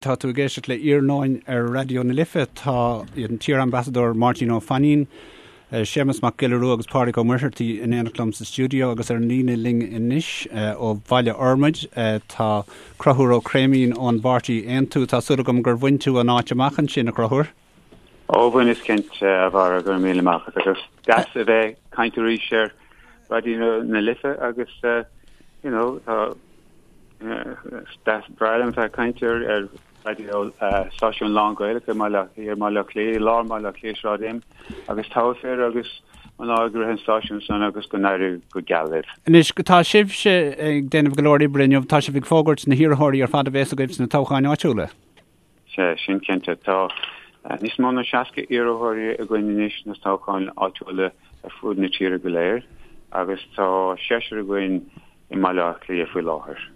Tá tú ag éisteacht le Iarnóin ar Raidió na Life. Tá an t-iar-ambasadóir Máirtín Ó Fainín, Séamus Mac Giolla Rua agus Pádraig Ó Muircheartaigh in éineacht liom sa stiúideo agus ar an líne linn anois ó Bhaile Fhormaid tá Conchúr Ó Creimín ón bpáirtí Aontú. Tá súil agam gur bhain tú an áit amach ansin, a Chonchúir. Ó bhaineas cinnte, a Bharra, go raibh míle maith agat agus deas a bheith ag caint arís ar Raidió na Life agus you know tá Is breá liom bheith ag caint ar ar raidió stáisiún lán-Ghaelach i mBaile i mBaile Átha Cliath, i lár Bhaile Átha Cliath, Sráid M, agus togha fir agus mná ag rith an stáisiún san agus go n-éirí go geal libh. Anois, tá sibhse ag déanamh go leor oibre inniu, tá sibh ag fógairt na hiarrthóirí ar fad a bhéas agaibh sna toghcháin áitiúla. Sea, sin cinnte. Tá níos mó ná 60 iarrthóirí againn anois sna toghcháin áitiúla ar fud na tíre go léir agus tá seisear againn i mBaile Átha Cliath faoi láthair.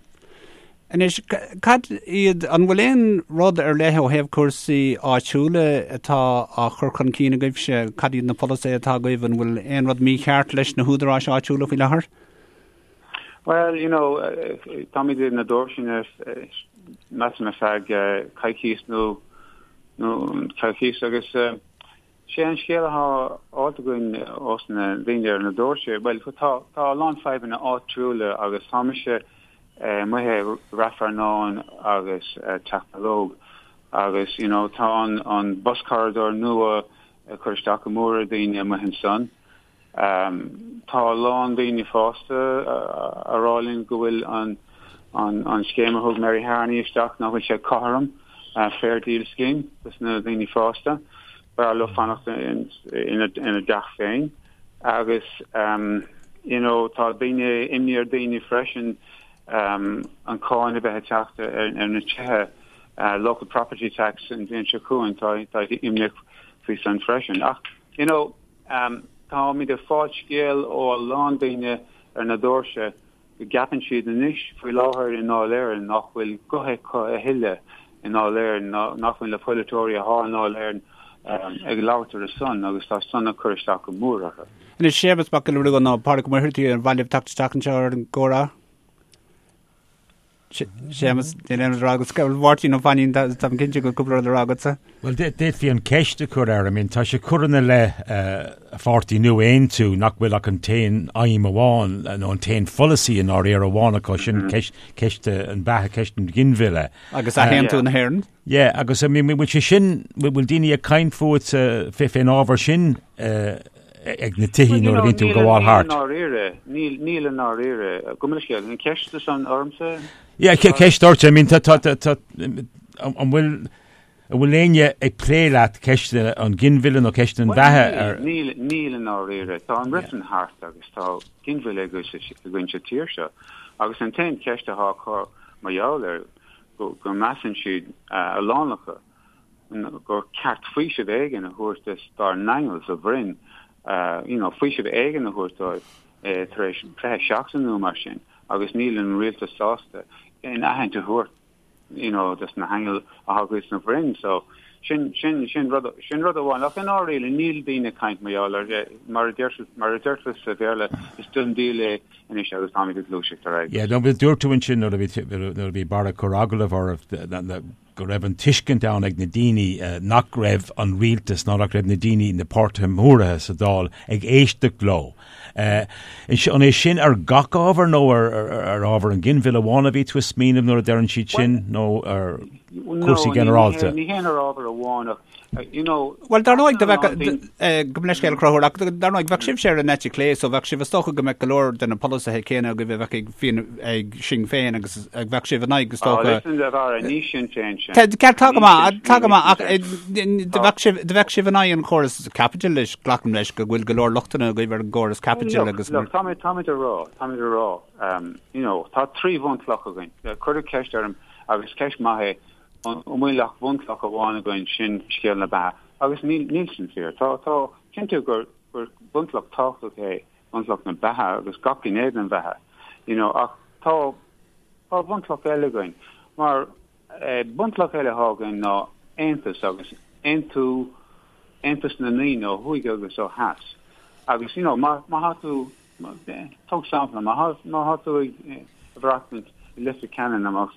Anois, cad iad, an bhfuil aon rud ar leith ó thaobh cúrsaí áitiúla atá á chur chun cinn agaibhse? Cad iad na polasaithe atá agaibh? An bhfuil aon rud mícheart leis na húdaráis áitiúla faoi láthair? Well, you know, táimid ar na doirse measaim ar feadh coicís nó nó coicís agus sé an scéal atá faighte againn ós na daoine ar na doirse, well tá tá a lán fadhbanna áitiúla agus tá mise amuigh i Rath Fearnáin agus Teach Ballóg agus you know tá an an bus corridor nua ag cur isteach go mór ar daoine amuigh ansan. Tá a lán daoine fásta a rá linn go bhfuil an an scéim a thug Mary Harney isteach, nach bhfuil sé cothrom, Fair Deal Scheme, dos na daoine fásta. B'fhearr leo fanacht ina dteach féin. Agus you know tá daoine, imní ar daoine freisin an cáin a bheith ag teacht ar na tithe, local property tax an bhliain seo chugainn, tá imní faoi san freisin. Ach you know, Táimid ag fáil scéal ó a lán daoine ar na doirse go gceapann siad anois faoi láthair i nDáil Éireann nach bhfuil guth acu a thuilleadh i nDáil Éireann, nach bhfuil na polaiteoirí atá i nDáil Éireann ag labhairt ar a son agus tá san ag cur isteach go mór orthu. Anois, Séamus Mac Giolla Rua nó Pádraig Ó Muircheartaigh, ar mhaith libh teacht isteach anseo ar an gcomhrá? Séamus, níl aon rud le rá agat. Máirtín Ó Fainín, táim cinnte go bhfuil cúpla rud le rá agatsa. Bhuel, d'fhéadfaí an ceist a chur air. I mean, tá sé curtha ina leith a pháirtí nua Aontú nach bhfuil ach an t-aon aidhm amháin nó an t-aon pholasaí i ndáiríre amháin acu, sin ceist an bheatha, ceist an ghinmhilleadh. Agus athaontú na hÉireann. Yeah, agus I mean, bhfuil sé sin, bhfuil daoine ag caint fút fén ábhar sin ag na tithí nuair a bhíonn tú ag gabháil thart? Níl i ndáiríre, níl, níl i ndáiríre. Gabh mo leithscéal, an ceist san ormsa? Yeah, ceist ort, I mean, tá, tá, tá, tá, an bhfuil, an bhfuil éinne ag plé leat ceist an ghinmhilleadh nó ceist an bheatha ar? Níl, níl i ndáiríre. Tá an reifreann thart agus tá ginmhilleadh againn sa tír seo. Agus an t-aon cheist atá acu mar gheall air, go measann siad, a lán acu, gur ceart faoiseamh éigin a thabhairt dos dár n-aingil sa bhroinn, you know, faoiseamh éigin a thabhairt dóibh tar éis 20 seachtain nó mar sin, agus níl an rialtas sásta aon aithint a thabhairt, you know, dos na haingil atá againn sna bhroinn. So, sin, sin, sin rud, sin rud amháin. Ach i ndáiríre, níl daoine ag caint mar gheall air, mar a deir, mar a deirtear sa Bhéarla, is done deal é anois agus táimid ag gluaiseacht ar aghaidh. Yeah, no, dúirt tú ansin nuair a bhí, nuair a bhí Barra ag cur agallamh oraibh, go raibh an tuiscint ann ag na daoine nach raibh an rialtas ná nach raibh na daoine, na páirtithe móra sa Dáil ag éisteacht leo. An é sin ar gach ábhar nó ar ábhar an ghinmhilleadh amháin a bhí tú ag smaoineamh nuair a deireann siad sin nó ar cúrsaí ginearálta? Ní hé ar ábhar amháin ach you know, Bhuel, dar ndóigh, do bheadh, gabh mo leithscéal a Chonchúir, ach dar ndóigh, bheadh sibhse ar an eite chlé, so bheadh sibh, is dócha go mbeadh go leor de na polasaithe céanna agaibh a bheadh ag Fianna, ag Sinn Féin agus bheadh sibh in aghaidh, is dócha. Oh, listen, a Bharra, ní Sinn Féin sin. Ceart, tá go maith, tá go maith, ach do bheadh sibh, do bheadh sibh in aghaidh an chóras caipitil, glacaim leis go bhfuil go leor lochtanna agaibh ar an gcóras caipitil agus. Look, táimid, táimid a rá, táimid a rá, you know, tá 3 bhunchloch againn. Cuireadh ceist orm agus ceist maith é, An bhfuil ach bunchloch amháin againn, sin scéal na beatha. Agus níl, níl sin fíor. Tá, tá, cinnte gur, gur bunchloch tábhachtach é bunchloch na beatha agus gach gné den bheatha, you know, ach tá, tá bunchloch eile againn. Mar, eh, bunchloch eile atá againn ná aontas agus aontú, aontas na ndaoine ó thuaidh agus ó theas. Agus, you know, má, má thá tú, Tóg sampla, má tá tú ag maireachtaint i Leitir Ceanainn nó má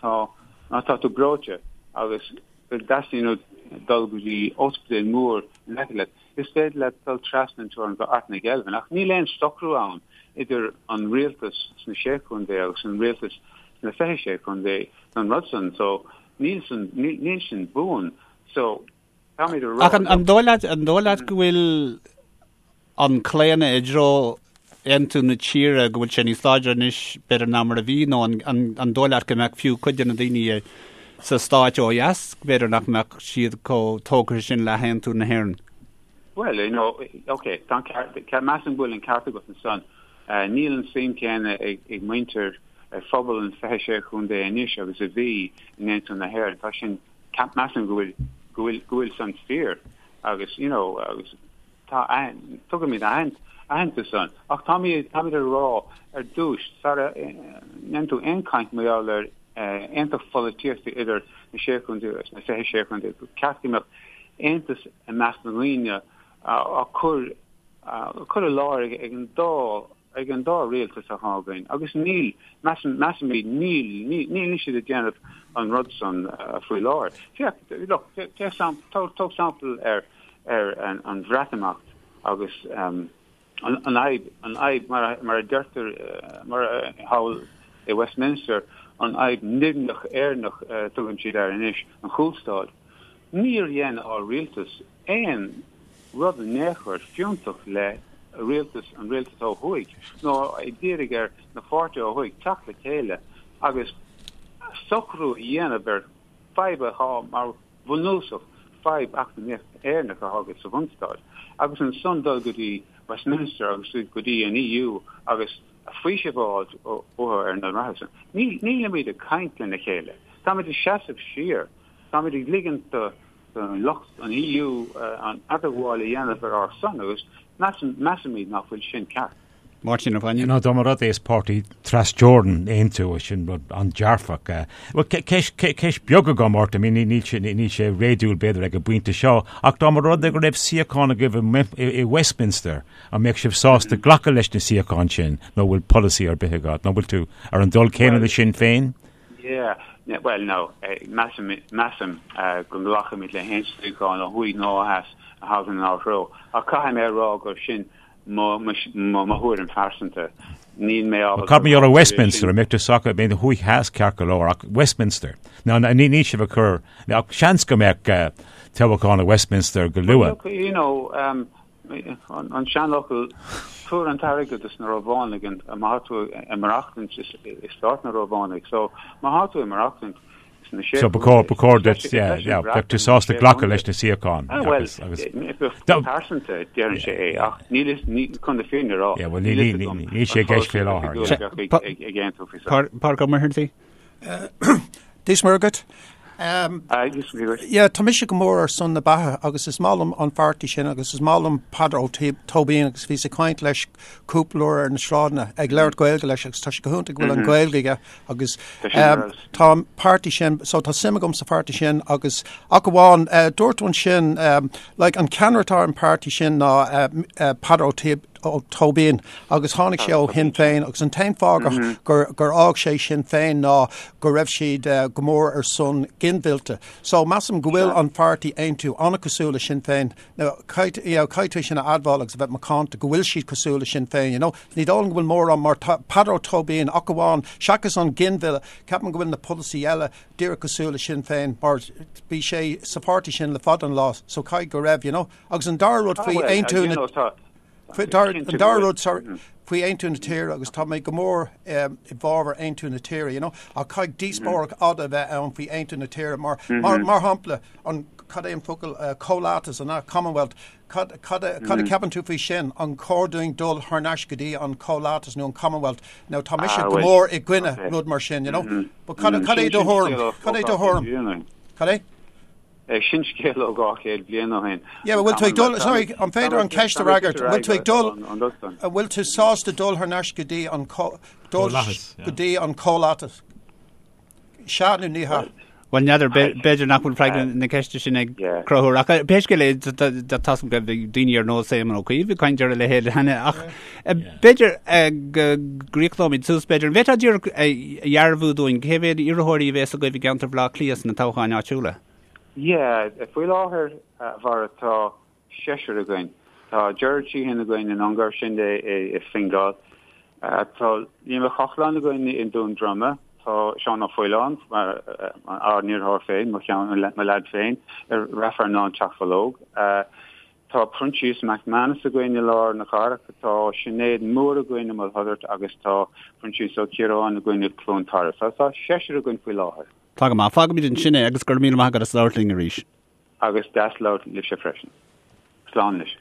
tá má tá tú breoite. agus go dteastaíonn uait dul go dtí ospidéal mór in aice leat, is féidir leat dul trasna an teorainn go Ard na Geilbhe. Ach níl aon socrú ann idir an rialtas sna Sé Chontae agus an rialtas sna 26 Chontae don rud san. So níl san, níl sin buan. So táimid a rá. Ach an dóigh leat, an dóigh leat go bhfuil an claonadh i dtreo aontú na tíre, go bhfuil sé níos láidre anois b'fhéidir ná mar a bhí, nó an dóigh leat go mbeadh fiú cuid de na daoine sa stáit ó dheas, b'fhéidir nach mbeadh siad chomh tógtha sin le haontú na hÉireann? Bhuel, you know, ok, tá an ceart, measaim go bhfuil an ceart agat ansan. Níl an suim céanna ag muintir, ag phobal an 26 chontae anois agus a bhí in aontú na hÉireann. Tá sin, measaim go bhfuil, go bhfuil, go bhfuil san fíor agus, you know, agus Tá, tugaimid aitheantas ann. Ach táimid, táimid ag rá ar dtús, sara ndéanann tú aon chaint mar gheall ar aontacht pholaitíochta idir na Sé Chontae agus na 26 Chontae, gur ceart go mbeadh aontas i measc na ndaoine á cur, á cur i láthair ag an dá ag an dá rialtas atá againn agus níl, measaim, measaimid, níl, níl siad ag déanamh an rud san faoi láthair. Féach, look, féach, tóg sampla ar, ar an Bhreatimeacht agus an fhadhb, an fhadhb mar a, mar a deirtear, mar a thall i Westminster, an fhadhb nimhneach Éireannach a tugann siad air anois, an chúlstad. Níor dhein ár rialtas aon rud in aon chor fiúntach le rialtas, an rialtas ó thuaidh, nó ag iarraidh ar na pháirtithe ó thuaidh teacht le chéile agus socrú a dhéanamh ar fadhb atá mar bhunúsach, fadhb eacnamaíoch Éireannach atá agat sa bhunstát, agus ansan dul go dtí Westminster agus go dtí an EU agus faoiseamh a fháilt uathu ar na rudaí san. Nílimid ag caint lena chéile. Táimid ag seasamh siar. Táimid ag ligint do lucht an EU an idirghabháil a dhéanamh ar ár son agus measaimid nach bhfuil sin ceart. Máirtín Ó Fainín. Nó dá mba rud é is páirtí trasteorann Aontú, sin rud an-dearfach. Bhuel, ceist beag agam ort, I mean, níl sé, níl sé réadúil b'fhéidir ag an bpointe seo, ach dá mba rud é go raibh suíochán agaibh i Westminster, an mbeadh sibh sásta glacadh leis na suíocháin sin nó bhfuil polasaí ar bith agat, nó bhfuil tú ar an dul céanna le Sinn Féin? Yeah, bhuel, no, measaim, measaim go nglacfaimid le haon suíochán ó thuaidh nó ó theas a thagann inár dtreo. Ach caithfidh mé a rá gur sin mo, mo, mo thuairim phearsanta. Níl mé ábalta. Cad mar gheall ar Westminster, an mbeadh tú sásta, b'fhéidir thuaidh theas ceart go leor, ach Westminster. Ná, ní, níl sibh ag cur, ach seans go mbeadh toghchán i Westminster go luath. Look, you know, um, An seanfhocal, tabhair an t-airgead dos na Rómhánaigh má tá tú ag maireachtaint i stát na Rómhánaigh. So má tá tú ag maireachtaint sna sé So ba chóir, ba chóir duit, yeah, yeah, bheadh tú sásta glacadh leis na suíocháin. Ah, well, go pearsanta déarfainn sé é, ach níl fhios, ní, chun na fírinne a rá, Yeah, well, níl fhios agam níl sé i gceist fé láthair. ag aontú faoi seo. Pádraig Ó Muircheartaigh? Dia is Muire dhuit. Yeah, tá mise go mór ar son na beatha agus is maith liom an pháirtí sin agus is maith liom Peadar Ó Tóibín agus bhíos ag caint leis cúpla uair ar na sráideanna ag labhairt Gaeilge leis agus tá sé go hiontach go bhfuil an Ghaeilge aige agus tá an páirtí sin, so tá suim agam sa pháirtí sin agus ach amháin dúirt tú ansin like an ceannaire atá ar an pháirtí sin ná Peadar Ó Ó Tóibín agus tháinig sé ó Shinn Féin agus an t-aon fáth gur gur fhág sé Sinn Féin ná go raibh siad go mór ar son ginmhillte. So measaim go bhfuil an pháirtí Aontú an-cosúil le Sinn Féin. Now caithfidh you know, caithfidh tú sin a admháil agus a bheith macánta go bhfuil siad cosúil le Sinn Féin, you know. Ní dóigh liom go bhfuil mórán mar tá Peadar Ó Tóibín ach amháin seachas an ginmhilleadh, ceapaim go bhfuil na polasaí eile díreach cosúil le Sinn Féin mar bhí sé sa pháirtí sin le fada an lá so caithfidh go raibh, you know. Agus an dara rud faoi aontú na an dara rud sorry faoi aontú na tíre agus tá mé go mór i bhfabhar aontú na tíre you know ach caithfidh díospóireacht fhada a bheith ann faoi aontú na tíre mar mar mar shampla an cad é an focal comhlathas an Commonwealth cad cad a cad a ceapann tú faoi sin an cóir dúinn dul thar n-ais go dtí an comhlathas nó an Commonwealth now tá mise go mór i gcoinne rud mar sin you know but cad cad é do thuairim cad é do thuairim cad é Sin scéal ó 200 bliain ó shin. Yeah, bhfuil tú ag dul, sorry, an féidir an ceist a fhreagairt, bhfuil tú ag dul, an bhfuil tú sásta dul thar n-ais go dtí an dul go dtí an comhlathas? Sea nó ní hea? Bhuel, n'fheadar, b'fhéidir nach bhfuil freagra na ceiste sin ag Conchúr, ach pé scéal é, tá a fhios agam go raibh daoine ar nós Éamon Ó Cuív ag caint ar a leithéid cheana, ach b'fhéidir go gcríochnóimid suas, b'fhéidir, an bhféadfá díreach a dhearbhú dúinn cé mhéad iarrthóirí a bhéas agaibh i gceantar Bhaile Átha Cliath sna toghcháin áitiúla? Yeah, faoi láthair, a Bharra, tá seisear againn. Tá Gerard Sheehan againn in Ongar, sin i Fingal. Tá Liam Ó Cochláin againn i nDún Droma. Tá Seán Ó Faoláin, ár n-iarrthóir féin, mo cheann, mo leaid féin, i Rath Fearnáin Teach Bhológ. Tá Proinsias McManus againn i lár na cathrach. Tá Sinéad Moore againn i Maigh Tuireadh agus tá Proinsias Ó Ciaráin againn i Cluain Tarbh. Tá seisear againn faoi láthair. Tá go maith. Fágfaimid ansin é agus go raibh míle maith agat as labhairt linn arís. Agus deas labhairt libhse freisin. Slán anois.